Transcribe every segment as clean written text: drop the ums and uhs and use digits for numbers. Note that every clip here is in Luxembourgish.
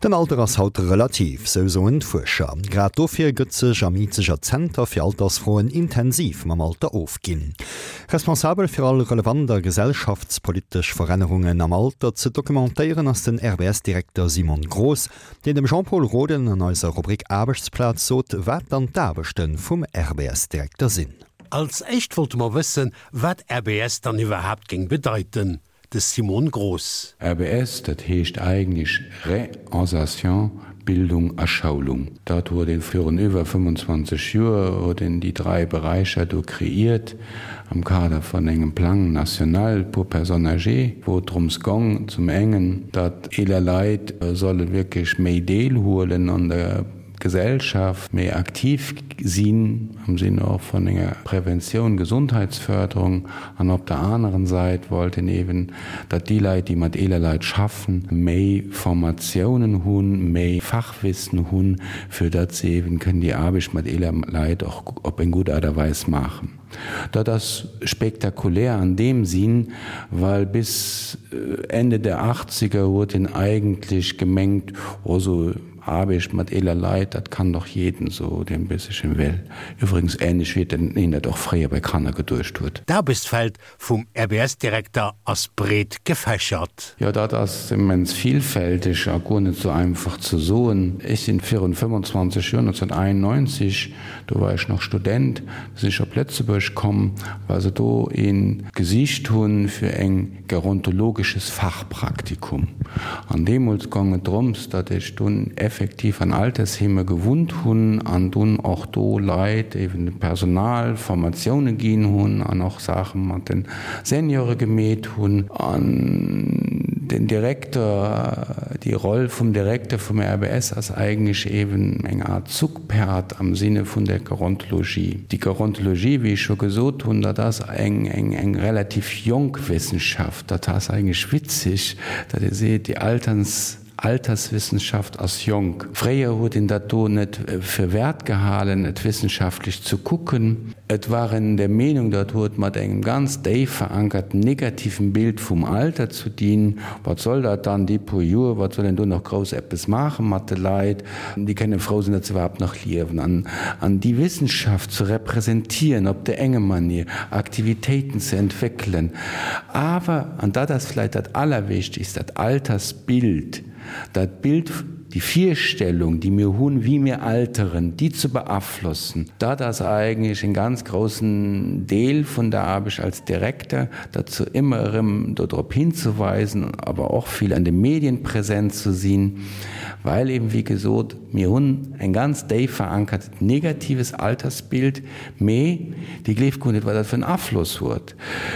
Den Alter ass haut relativ, sou soen d'Fuerscher. Grad dofir gëtt sech am Izeger Zenter fir Altersfroen intensiv mam Alter ofginn. Responsabel fir all relevant a gesellschaftspolitesch Verännerungen am Alter ze documentéieren ass den RBS-Direkter Simon Groß, deen dem Jean-Pol Roden an eiser Rubrik Aarbechtsplaz sot, wat dann d'Aarbechte vum RBS-Direkter sinn. Als éischt wollte mer wëssen, wat RBS dann iwwerhaapt géing bedeiten. De Simon Groß. RBS, dat heescht eigentlech Reinsertion, Bildung a Schoulung. Dat huet een virun iwwer 25 Joer huet een déi dräi Beräicher do kreeiert am Kader vun engem Plan national pour personnes âgées, wou et drëms gong, zum engen, datt eeler Leit solle wierklech méi deelhuelen an der Gesellschaft, méi aktiv sinn am Sinn och vun enger Preventioun, Gesundheitsförderung, an op der aneren Sait wollt een eben, datt déi Leit, déi mat eeler Leit schaffen, méi Formatiounen hunn, méi Fachwissen hunn, fir datt se eben kënnen déi Aarbecht mat eeler Leit och op eng gutt Aart a Weis maachen. Dat ass spektakulär an deem Sinn, well bis Ende der Achtziger huet een eigentlech gemengt, oh sou Aarbecht mat eeler Leit, dat kann doch jeden sou, deen e bëssechen wéll. Iwwregens ähnlech wéi een dat och fréier bei Kanner geduecht huet. D'Aarbechtsfeld vum RBS-Direkter ass breet gefächert. Jo, dat ass immens vielfälteg a guer net sou einfach ze soen. Ech sinn virun 25 Joer, 1991, do war ech nach Student, sinn ech op Lëtzebuerg komm, well se do een gesicht hunn fir eng gerontologisches Fachpraktikum. An deemools gong et drëms, datt ech dunn effektiv an Altersheeme gewunnt hunn an dunn och do Leit, eben dem Personal, Formatioune ginn hunn an och Saache mat de Seniore gemeet hunn. An den Direkter, déi Roll vum Direkter vum RBS ass eigentlech eben eng Art Zugpferd am Sinne vun der Gerontologie. Déi Gerontologie, wéi ech scho gesot hunn, dat ass eng, eng, eng relativ jonk Wissenschaft. Dat ass eigentlech witzeg, datt ee seet, déi Alterns, Alterswissenschaft ass jonk. Fréier huet een dat do net fir wäert gehalen, et wissenschaftlech ze kucken. Et war een der Meenung, dat huet mat engem ganz déif verankerten negativen Bild vum Alter zu dinn. Wat soll dat dann, déi puer Joer, wat soll een do nach grouss eppes maache mat de Leit? Déi kënne frou sinn, datt se iwwerhaapt nach liewen. An, an déi Wissenschaft ze representieren op der enge Manier, Aktivitéiten ze entwéckelen, awer, an dat ass vläicht dat Allerwichtigst, dat Altersbild, dat Bild, déi Virstellung, déi mir hunn, wéi mir alteren, déi ze beaflossen, dat ass eigentlech en ganz groussen Deel vun der Aarbecht als Direkter, derzou ëmmer erëm dodrop hinzeweisen, awer och vill an de Medien präsent ze sinn. Well eben, wéi gesot, mir hunn eng ganz déif verankert negatives Altersbild, mee Dir gleeft guer net, wat dat fir en Afloss huet.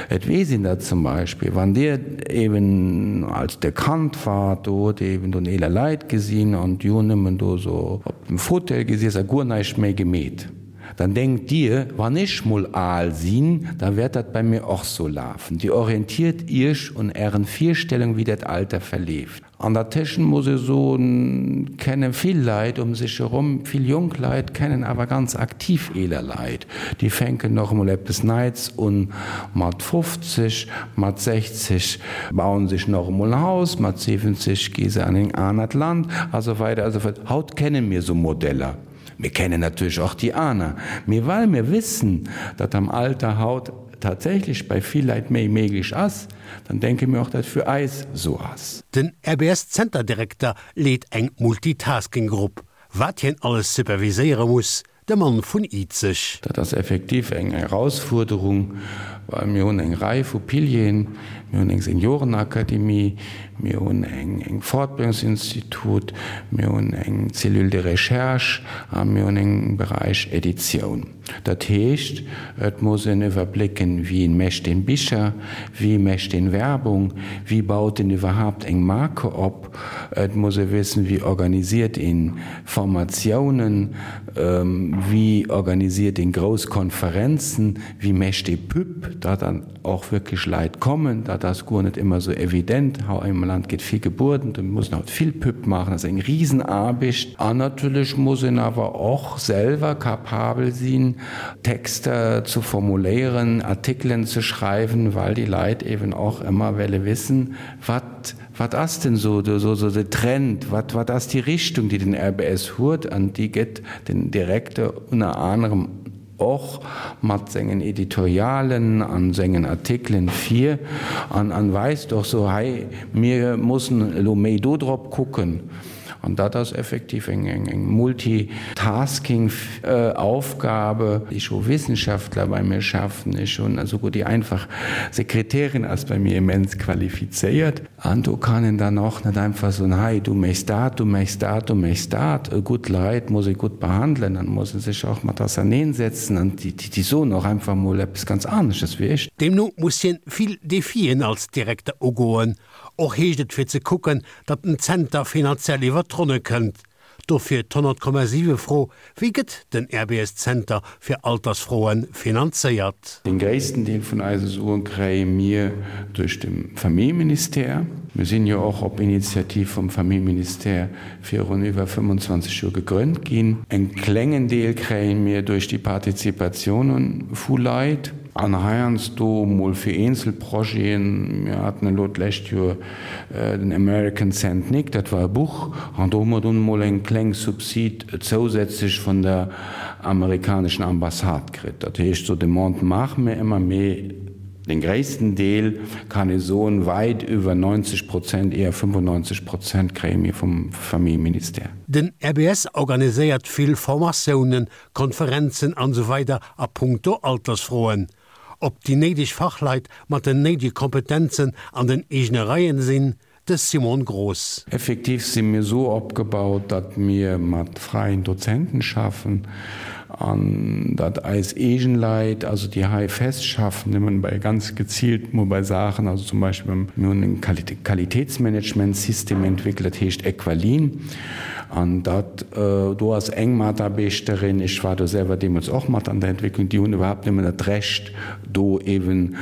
Et weess een dat zum Beispill, wann Dir eben, als Der Kand waart, do hutt Dir eben do eeler Leit gesinn an déi hunn nëmmen do esou op dem Fauteuil gesiess a guer näischt méi gemeet. Dann denkt Dir, wann ech mol al sinn, da wäert dat bei mir och sou lafen. Dir orientiert Iech un Ären Virstellungen, wéi dat Alter verleeft. An der Tëschent muss ech soen, kenne vill Leit um sech erom, vill jonk Leit kennen awer ganz aktiv eeler Leit, déi fänken och emol eppes Neits un mat 50, mat 60 bauen sech nach emol en Haus, mat 70 gi se an en anert Land a sou weider a sou fort. Haut kenne mir sou Modeller. Mir kennen natierlech och déi aner, mee well mir wissen, datt am Alter haut tatsächlech bei vill Leit méi méiglech ass, dann denke mir och, datt fir eis esou ass. Den RBS-Zenterdirekter leet eng Multitasking-Grupp. Wat hien alles superviséiere muss, de Mann vun Izeg. Dat ass effektiv eng Erausfuerderung, well mir hunn eng Rei vu Pilieren, Mir hunn eng Seniorenakademie, mir hunn eng Fortbildungsinstitut, mir hunn eng Cellule de recherche a mir hunn eng Beräich Editioun. Dat heescht, et muss een iwwerblécken, Wien mécht een Bicher, wie mécht een Werbung, wie baut een iwwerhaapt eng Marke op? Et muss ee wissen, Wie organisiert een Formatiounen, wie organisiert een grouss Konferenzen, wie mécht ee Pub? Dat an. och wierklech Leit kommen. Dat ass guer net ëmmer esou evident. Hei am Land gétt vill gebueden, do muss een haut vill Pub maachen, dat ass eng Risenaarbecht. An natierlech muss een awer och selwer capabel sinn. ginn, Texter zu formuléieren, Artikelen ze schreiwen, well déi Leit eben och ëmmer welle wissen, wat, wat ass denn so, so, so de Trend, wat, wat ass déi Richtung, déi den RBS huet, an déi gëtt den Direkter ënner anerem och mat sengen Editorialen an sengen Artikelen vir an an weist och so, hei, mir mussen elo méi do drop kucken. An dat ass effektiv eng eng Multitasking Aufgabe. Ech hu Wissenschaftler bei mir schaffen, ech hunn esouguer déi einfach Sekretärin ass bei mir immens qualifizéiert. An do kann een dann och net einfach soen, hei du méchs dat, du méchs dat, du méchs dat. Gutt Leit muss ee gutt behandelen an muss ee sech och mat auserneensetzen an déi soen och einfach mol eppes ganz anesches wéi ech. Deemno muss hien vill Defien als Direkter ugoen, Och heescht et fir ze kucken, datt den Zenter finanziell iwwer d'Ronne kënnt. Dofir d'100,7 Fro, Wéi gëtt den RBS-Zenter fir Altersfroe finanzéiert? Den gréissten Deel vun eise Suen kréie mir duerch de Familljeministère. Mir sinn jo och op Initiativ vum Familljeministère virun iwwer 25 Joer gegrënnt ginn. En klengen Deel kréie mir duerch déi Partizipatiounen vu Leit. An heiansdo mol fir eenzel Projeten. Mir haten elo d'lescht Joer den American Saint Nick, dat war e Buch, an do hu mer dunn mol eng kleng Subsid zousätzlech vun der amerikaneschen Ambassade kritt. Dat heescht, sou Demandë maache mir ëmmer, mee den gréissten Deel, kann ee soen, wäit iwwer 90 Prozent, eher 95 Prozent kréie mir vum Familljeministère. Den RBS organiséiert vill Formatiounen, Konferenzen an esou weider a punkto Altersfroen. Ob déi néideg Fachleit mat den néidege Kompetenzen an den eegene Reien sinn, de Simon Groß. Effektiv si mir esou opgebaut, datt mir mat fräien Dozenten schaffen an datt eis eegen Leit, also déi hei fest schaffen, nëmmen bei ganz geziilt mol bei Saachen, also zum Beispill mir hunn e Qualitätsmanagementsystem entwéckelt, dat heescht Equalin. An dat do ass eng Mataarbechterin, ech war do selwer deemools och mat an der Entwécklung, déi hunn iwwerhaapt nëmmen dat Recht, do eeben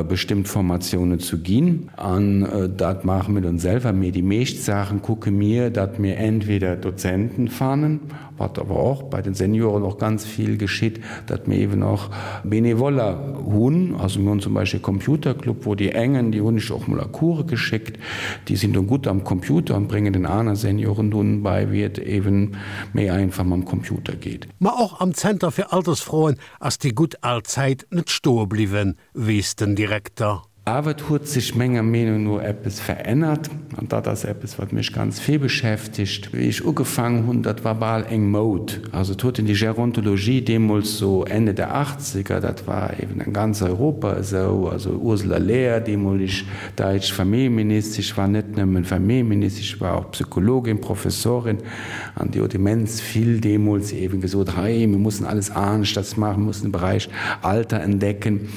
bestëmmt Formatiounen ze ginn. An dat maache mir dann selwer. Mee déi meescht Saache kucke mir, datt mir entweder Dozenten fannen, wat awer och bei den Senioren och ganz vill geschitt, datt mir eeben och Benevoller hunn. Also mir hunn zum Beispill e Computerclub, wou déi engen, déi hunn ech och mol a Coure geschéckt, Déi sinn dunn gutt am Computer an bréngen den aner Senioren dunn bei, wéi et eben méi einfach mam Computer geet. Ma och am Zenter fir Altersfroen ass déi gutt al Zäit net stoe bliwwen, weess den Direkter. Awer et huet sech menger Meenung no eppes verännert, an dat ass eppes, wat mech ganz vill beschäftegt. Wéi ech ugefaangen hunn, dat war bal eng Moud. Also et huet een déi Gerontologie deemools, sou Ende der Achtzeger, dat war eben an ganz Europa esou, also Ursula Lehr, deemoleg Däitsch Familljeministesch war net nëmmen Familljeministesch, war och Psychologin, Professorin an déi huet immens vill deemools eben gesot, hei mir mussen alles aneschters maachen, mir mussen de Beräich Alter entdecken.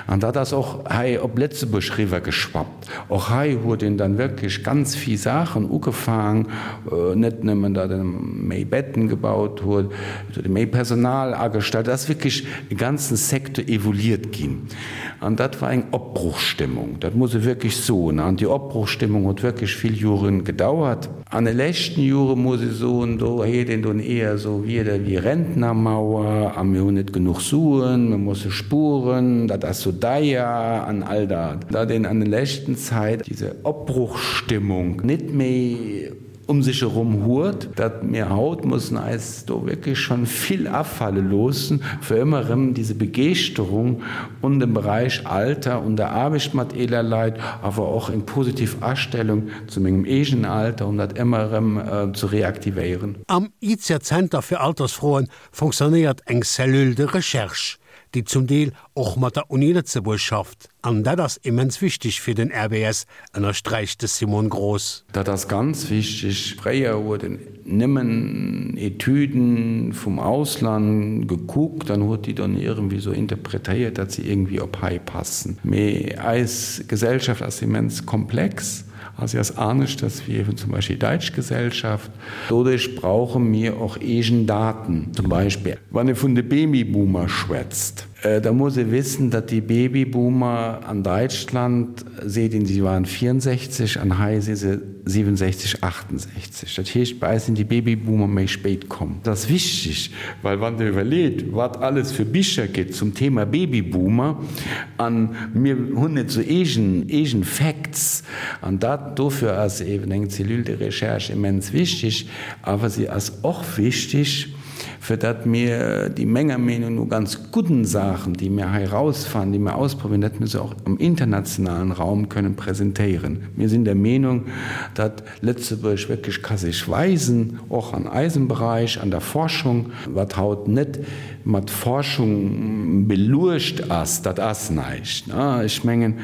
An dat ass och hei op Lëtzebuerg riwwergeschwappt. Och hei huet een dann wierklech ganz vill Saachen ugefaang, net nëmmen datt ee méi Betten gebaut huet, et huet ee méi Personal agestallt, et ass wierklech e ganzen Secteur evoluiert ginn. An dat war eng Opbruchsstimmung, dat muss ee wierklech soen. An déi Opbruchsstimmung huet wierklech vill Jore gedauert. An de leschten Jore muss ee soen, do heet een dunn eher esou Wierder wéi Rentnermauer a mir hunn net genuch Suen, mir musse spueren, dat ass sou deier an all dat. Datt een an de leschten Zäit diese Opbruchsstimmung net méi um sech erom huet, datt mir haut mussen eis do wierklech schonn vill afale loossen, fir ëmmer erëm diese Begeeschterung un dem Bereich Alter, un der Aarbecht mat eeler Leit, awer och eng positiv Astellung zu mengem eegenen Alter, um dat ëmmer erëm ze reaktivéieren. Am IZER Zenter fir Altersfroen fonctionnéiert eng Cellule de recherche, déi zum Deel och mat der Uni Lëtzebuerg schafft. An dat ass immens wichteg fir den RBS, ënnersträicht de Simon Groß. Dat ass ganz wichteg. Fréier huet en nëmmen Etüden vum Ausland gekuckt an huet déi dann iergendwéi esou interpretéiert, datt se iergendwéi op hei passen. Mee eis Gesellschaft ass immens komplex a si ass aneschters wéi eben zum Beispill déi däitsch Gesellschaft. Doduerch brauche mir och eegen Daten. Zum Beispill wann ee vun de Babyboomer schwätzt. Da muss ee wissen, datt déi Babyboomer an Däitschland, seet een, si waren 64 an hei si se 67, 68. Dat heescht, bei eis sinn déi Babyboomer méi spéit komm. Dat ass wichteg, well wann Der iwwerleet, wat alles fir Bicher gëtt zum Thema Babyboomer, a mir hunn net sou eegen, eegen Facts, an dat, dofir ass eeben eng Cellule de recherche immens wichteg, awer si ass och wichteg, fir datt mir déi menger Meenung no ganz gudden Saachen, déi mir hei erausfannen, déi mir ausprobieren, datt mir se och am internationalen Raum kënnen presentéieren. Mir sinn der Meenung, datt Lëtzebuerg wierklech ka sech weisen, och an eisem Bereich, an der Forschung, wat haut net mat Forschung beluecht ass, dat ass näischt. Ech mengen,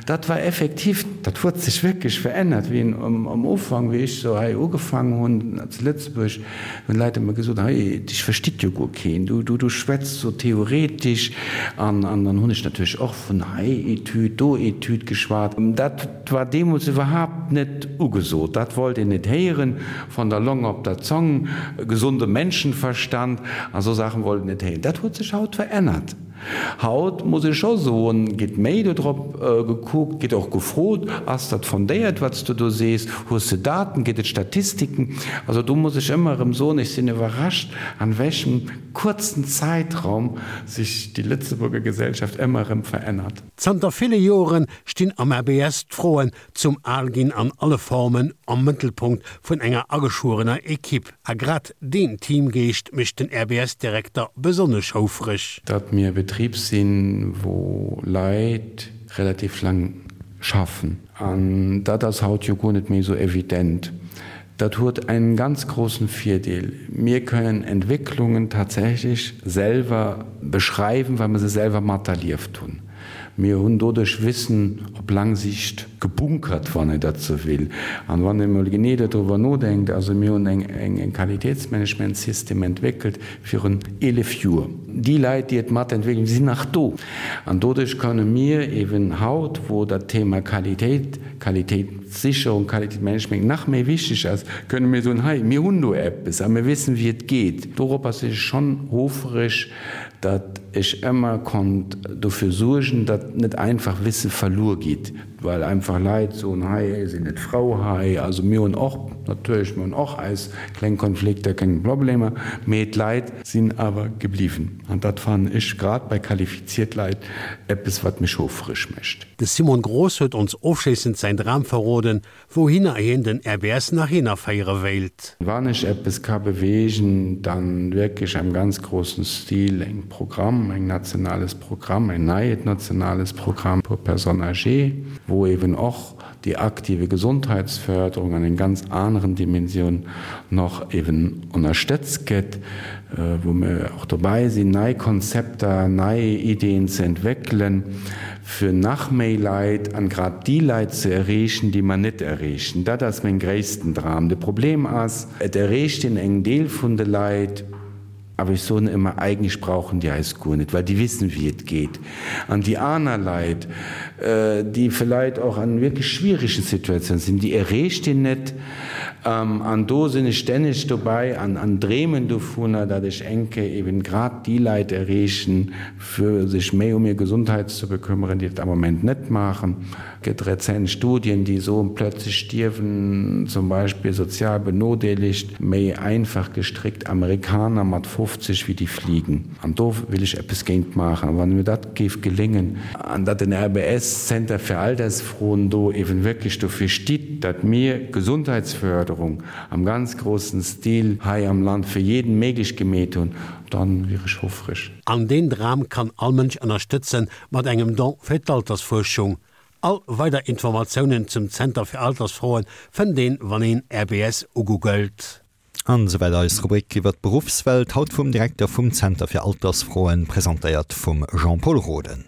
dat war effektiv, dat huet sech wierklech verännert, wéi am Ufank, wéi ech sou hei ugefaangen hunn zu Lëtzebuerg, Hunn Leit ëmmer gesot, hei, dech versteet jo guer keen, du, du, du schwätz sou theoretesch. An, an dann hunn ech natierlech och vun hei Etüd, do Etüd geschwat. Dat war deemools iwwerhaapt net ugesot, dat wollt een net héieren, von der Longe op der Zong, gesunde Menschenverstand a sou Saachen wollt een net héieren. Dat huet sech haut verännert. Haut muss ech scho soen, geet méi dodrop gekuckt, geet och gefrot, Ass dat fondéiert, wat s du do sees? Hues de Daten? Gëtt et Statistiken? Also do muss ech ëmmer erëm soen, ech sinn iwwerrascht, an wéchem kuerzen Zäitraum sech déi Lëtzebuerger Gesellschaft ëmmer erëm verännert. Zanter ville Joren stinn am ABS d'Froen zum Alginn an alle Formen am Mëttelpunkt vun enger ageschwuerener Equipe. A grad deen Teamgeescht mécht den RBS-Direkter besonnesch houfreg. Datt mir e Betrib sinn, wou Leit relativ laang schaffen. An dat ass haut jo guer net méi esou evident. Dat huet einen ganz großen Virdeel, Mir kënnen Entwécklungen tatsächlech selwer beschreiwen, well mer se selwer materlieft hunn. Mir hunn doduerch Wissen op laang Sicht gebunkert, wann een dat sou will. An wann een emol genee dodriwwer nodenkt, also mir hunn eng Qualitätsmanagementsystem entwéckelt virun 11 Joer. Déi Leit, déi et matentwéckelt hunn, sinn nach do. An doduerch kënne mir eben haut, wou dat Thema Qualitéit, Qualitéitssicherung, Qualitätsmanagement nach méi wichteg ass, kënne mir soen, hei, mir hunn do eppes a mir wissen, wéi et geet. Doropper sinn ech schonn hofereg, datt ech ëmmer konnt dofir suergen, datt net einfach Wisse verluer geet, well einfach Leit soen, hei sinn net frou hei. Also mir hunn och natierlech, mir hunn och eis kleng Konflikter, kleng Problemer, mee d'Leit sinn awer gebliwwen. An dat fannen ech grad bei qualifiziert Leit eppes, wat mech houfreg mécht. De Simon Groß huet ons ofschléissend säin Dram verroden, Wouhinner hien den RBS nach hinnerféiere wéilt. Wann ech eppes ka bewegen, dann wierklech am ganz großen Stil eng Programm, eng nationales Programm, en neiet nationales Programm pour personnes âgées, wou eben och déi aktive Gesondheitsförderung an eng ganz aneren Dimensioun nach eben ënnerstëtzt gëtt, wou mir och dobäi sinn, nei Konzepter, nei Ideen ze entwéckelen, fir nach méi Leit, an grad déi Leit ze erreechen, déi mer net erreechen. Dat ass meng gréissten Dram. De Problem ass, et erreecht een eng Deel vun de Leit, awer ech soen ëmmer, eigentlech brauchen déi eis guer net, well déi wissen, wéi et geet. An déi aner Leit, déi vläit och an wierklech schwierigen Situatiounen sinn, déi erreecht een net. An do sinn ech stänneg dobäi an dreemen dovunner, datt ech eng Kéier eben grad déi Leit erreechen, fir sech méi um hir Gesundheit ze bekümmern, déi dat am Moment net maachen. Et gëtt rezent Studien, déi soen, plötzlich stierwen zum Beispill sozial benodeelegt, méi einfach gestrickt Amerikaner mat 50 wéi déi fliegen. An do will ech eppes géint maachen. A wann mir dat géif geléngen, an datt den RBS Zenter fir Altersfroen do eben wierklech dofir stitt, datt mir Gesundheitsförderung am ganz großen Stil hei am Land fir jeden méiglech gemeet hunn, Dann wier ech houfreg. An deen Dram kann all Mënsch ënnerstëtzen mat engem Don fir d'Altersfuerschung. All weider Informatiounen zum Zenter fir Altersfroen fënnt een wann een RBS ugoogelt. An esouwäit eis Rubrik iwwer d'Beruffswelt, haut vum Direkter vum Zenter fir Altersfroen, presentéiert vum Jean-Pol Roden.